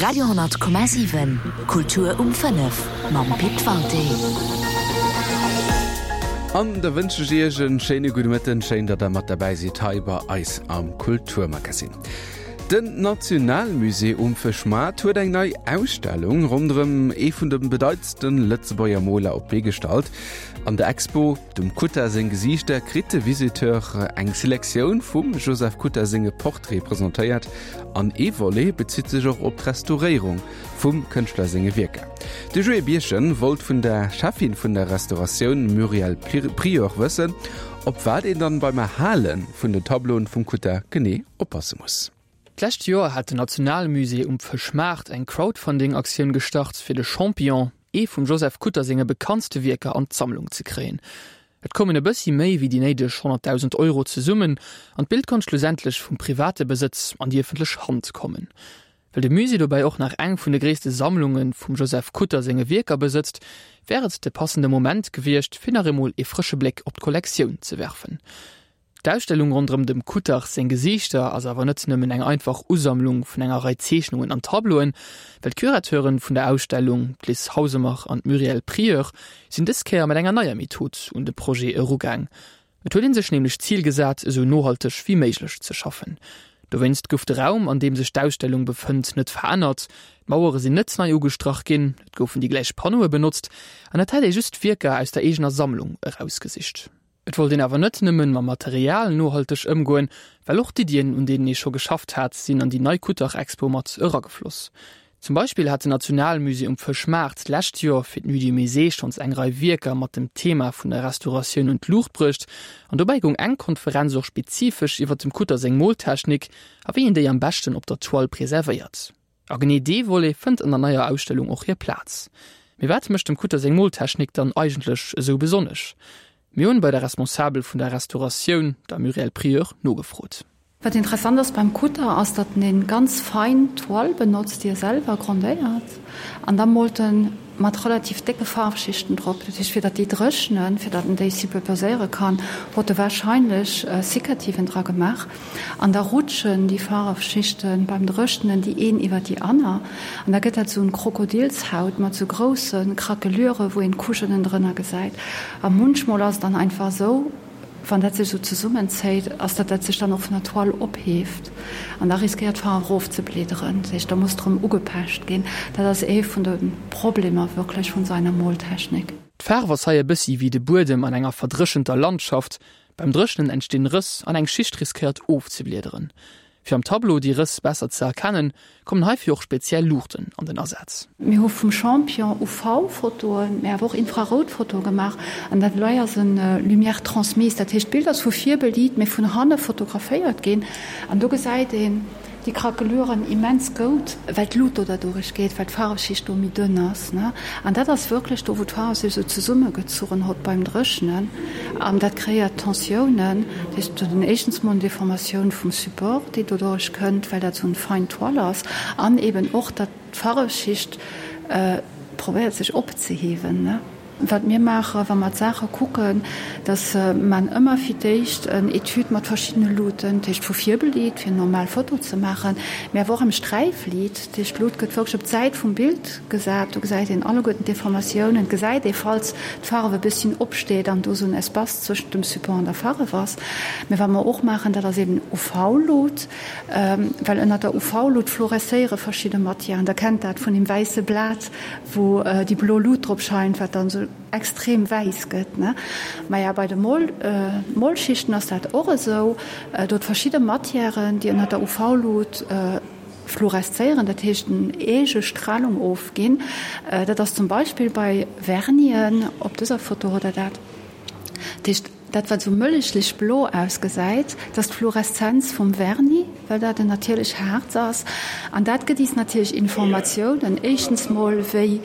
Radio,7 Kultur um 5 mam Pit Walté. An da wënsche ech Iech en schéine gudde Mëtten. Schéin, datt der mat derbäi sidd hei bei eis am Kulturmagazin. Den Nationalmusée um Fëschmaart huet eng nei Ausstellung ronderëm ee vun de bedeitendste Lëtzebuerger Moler op d'Bee gestallt. An der Expo Dem Kutter seng Gesiichter kritt de Visiteur eng Selektioun vum Joseph Kutter senge Portraite presentéiert an ee Volet bezitt sech och op d'Restauréierung vum Kënschtler senge Wierker. De Joé Birchen wollt vun der Cheffin vun der Restauratioun Muriel Prieur wëssen, op wat een dann beim Erhale vun den Tableauen vum Kutter genee oppasse muss. D'lescht Joer hat den Nationalmusée um Fëschmaart eng Crowdfunding-Aktioun gestart, fir de Champion, ee vum Joseph Kutter senge bekanntste Wierker, an d'Sammlung ze kréien. Et koumen e bëssi méi wéi déi néideg 100.000 Euro zesummen an d'Bild konnt schlussendlech vum private Besëtz an déi ëffentlech Hand kommen. Well de Musée dobäi och nach eng vun de gréisste Sammlunge vum Joseph Kutter senge Wierker besëtzt, wär et de passende Moment gewiescht, fir nach eemol ee frësche Bléck op d'Kollektioun ze werfen. D'Ausstellung ronderëm dem Kutter seng Gesiichter ass awer net nëmmen eng einfach Usammlung vun enger Rei Zeechnungen an Tableauen, well d'Curateuren vun der Ausstellung, d'Liz Hausemer an d'Muriel Prieur, sinn dës Kéier mat enger neier Method un de Projet erugaang. Et huet ee sech nämlech d'Zil gesat, esou nohalteg wéi méiglech ze schaffen. Dowéinst gouf de Raum, an deem sech d'Ausstellung befënnt, net verännert, d'Mauere sinn net nei ugestrach ginn, et goufen déi gläich Panneaue benotzt an et hätt ee just Wierker aus der eegener Sammlung erausgesicht. Et wollt een awer net nëmmen mam Material nohalteg ëmgoen, well och d'Iddien, un deenen ee scho geschafft hat, sinn an déi nei Kuttach-Expo mat eragefloss. Zum Beispill hat den Nationalmusée um Fëschmaart d'lescht Joer fir d'Nuit du Musée schonns eng Rei Wierker mat dem Thema vun der Restauratioun un d'Luucht bruecht an dobäi goung eng Konferenz och spezifesch iwwer dem Kutter seng Moltechnik a wéi een déi am beschten op der Toile preservéiert. A genee dee Volet fënnt an der neier Ausstellung och hir Plaz. Mee wat mécht dem Kutter seng Moltechnik dann eigentlech esou besonnesch? Mir hunn bei der Responsabel vun der Restauratioun, der Muriel Prieur, nogefrot. Wat interessant ass beim Kutter ass, datt en een ganz fein Toile benotzt, déi e selwer grondéiert, an da moolt en mat relativ décke Faarfschichten drop. Dat heescht, fir datt déi dréchnen, fir datt en déi superposéiere kann, huet e warscheinlech Sikativen dra gemaach. An da rutschen déi Faarfschichte beim Dréchnen déi een iwwer déi aner, an da gëtt dat esou en Krokodilshaut mat esou grousse Craquelure, wou een d'Couchen ënnendrënner gesäit. A munchmol ass et dann einfach esou, Wann dat sech esou zesummenzéit, ass dat dat sech dann och vun der Toile opheeft an da riskéiert d'Faarf erofzebleederen. Dat heescht, da muss drëm ugepecht ginn. Dat ass ee vun de Problemer wierklech vun esou enger Moltechnik. D'Faarf ass hei e bëssi wéi de Buedem an enger verdréchenter Landschaft, Beim Dréchnen entstinn Rëss an eng Schicht riskéiert ofzebliederen. Fir am Tableau déi Rëss besser ze erkennen, kommen heifir och speziell Luuchten an den Asaz. Mir hu vum Champion UV-Fotoen, mä awer och Infrarout-Fotoe gemaach. An dat elei ass en Lumière transmise, dat heescht d'Bild ass vu vir beliit, mä vun hanne fotograféiert ginn. An do gesäit een déi Craqueluren immens goud, well d'Lut do derduerch geet, well d'Faarfschicht do méi dënn ass. An dat ass wierklech do, wou d'Faarf sech esou zesummegezuchen hott beim Dréchnen. An dat kreéiert Tensiounen. Dat heescht, et huet een éischtens mol eng Deformatioun vum Support, déi doduerch kënnt, well dat esou en fein Toile ass, an eben och, datt d'Faarfschicht probéiert sech opzehiewen. Wat mir maachen, wa mer d'Saache kucken, dass man ëmmer fir d'éischt en Etüd mat verschiddene Luuten, dat heescht vu vir beliit, fir eng normal Foto ze maachen, mä awer och am Sträifliit, dat heescht d'Lut gëtt wierklech op d'Säit vum Bild gesat, do gesäit een alleguerten d'Deformatiounen, et gesäit ee falls d'Farf e bësschen opsteet an do esou en Espace zwëschent dem Support an der Farf ass. Mä wat mer och maachen, dat ass eben UV-Lut, well ënnert der UV-Lut fluorescéiere verschidde Matièren, Der kennt dat vun deem wäisse Blat, wou déi blo Lut drop scheint, wat dann esou extrem wäiss gëtt, ne? Maja, bei de Mol, Molschichten ass dat och esou. Do huet verschidde Matièren, déi ënner der UV-Lut fluoreszéieren, dat heescht en eege Stralung ofginn. Dat ass zum Beispill bei Vernien, op dëser Foto hutt Der dat. Dat heescht. Dat wat esou mëllechlech blo ausgesäit, dat ass d'Fluoreszenz vum Vernis, well dat en natierlech Haarz ass. An dat gëtt is natierlech Informatiounen, éischtens mol wéi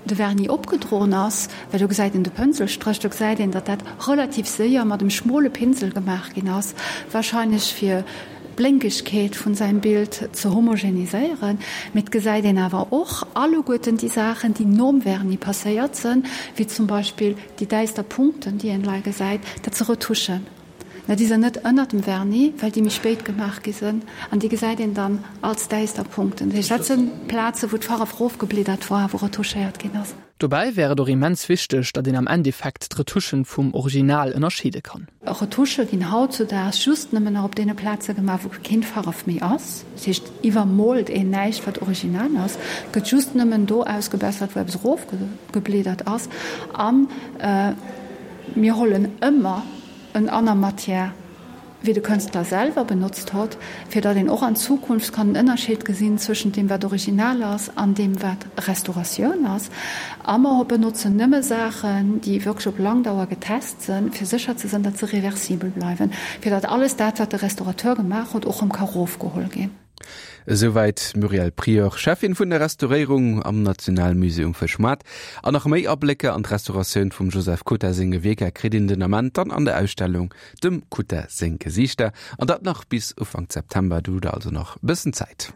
de Vernis opgedroen ass, well do gesäit een de Pënselstréch, do gesäit een, datt dat relativ séier mat em schmole Pinsel gemaach ginn ass, wahrscheinlech fir d'Blénkegkeet vun säim Bild ze homogeniséieren. Mee et gesäit een awer och alleguerten déi Saachen, déi nom Vernis passéiert sënn, wéi zum Beispill déi däister Punkten, déi een lei gesäit, dat se Retouchen. Mä déi sinn net ënnert dem Vernis, well déi méi spéit gemaach gi sinn. An déi gesäit een dann als däister Punkten. Dat heescht, dat sinn Plaze wou d'Farf erofgebliddert war, wou retouchéiert ginn ass. Dobäi wär et och immens wichteg, datt een am Endeffekt d'Retouchen vum Original ënnerscheede kann. Retouchë ginn hautzudaags just nëmmen nach op deene Plaze gemaach, wou keen Farf méi ass. Dat heescht, iwwermoolt een näischt, wat original ass. Et gëtt just nëmmen do ausgebessert, wou eppes erofgebliedert ass. A mir hollen ëmmer en aner Matière wéi de Kënstler selwer benotzt hott, fir datt een och an Zukunft kann den Ënnerscheed gesinn zwëschent deem wat original ass an deem wat Restauratioun ass. A mer benotzen nëmme Saachen, déi wierklech op lang Dauer getest sënn, fir sécher ze sënn, datt se reversibel bleiwen, fir datt alles dat wat de Restaurateur gemaach huet och rëm ka rofgeholl ginn. Esouwäit d'Muriel Prieur, Cheffin vun der Restauréierung am Nationalmusée um Fëschmaart. An nach méi Ablécker an d'Restauratioun vum Joseph Kutter senge Wierker kritt een den Ament dann an der Ausstellung Dem Kutter seng Gesiichter. An dat nach bis Ufank September, do hutt der also nach e bëssen Zäit.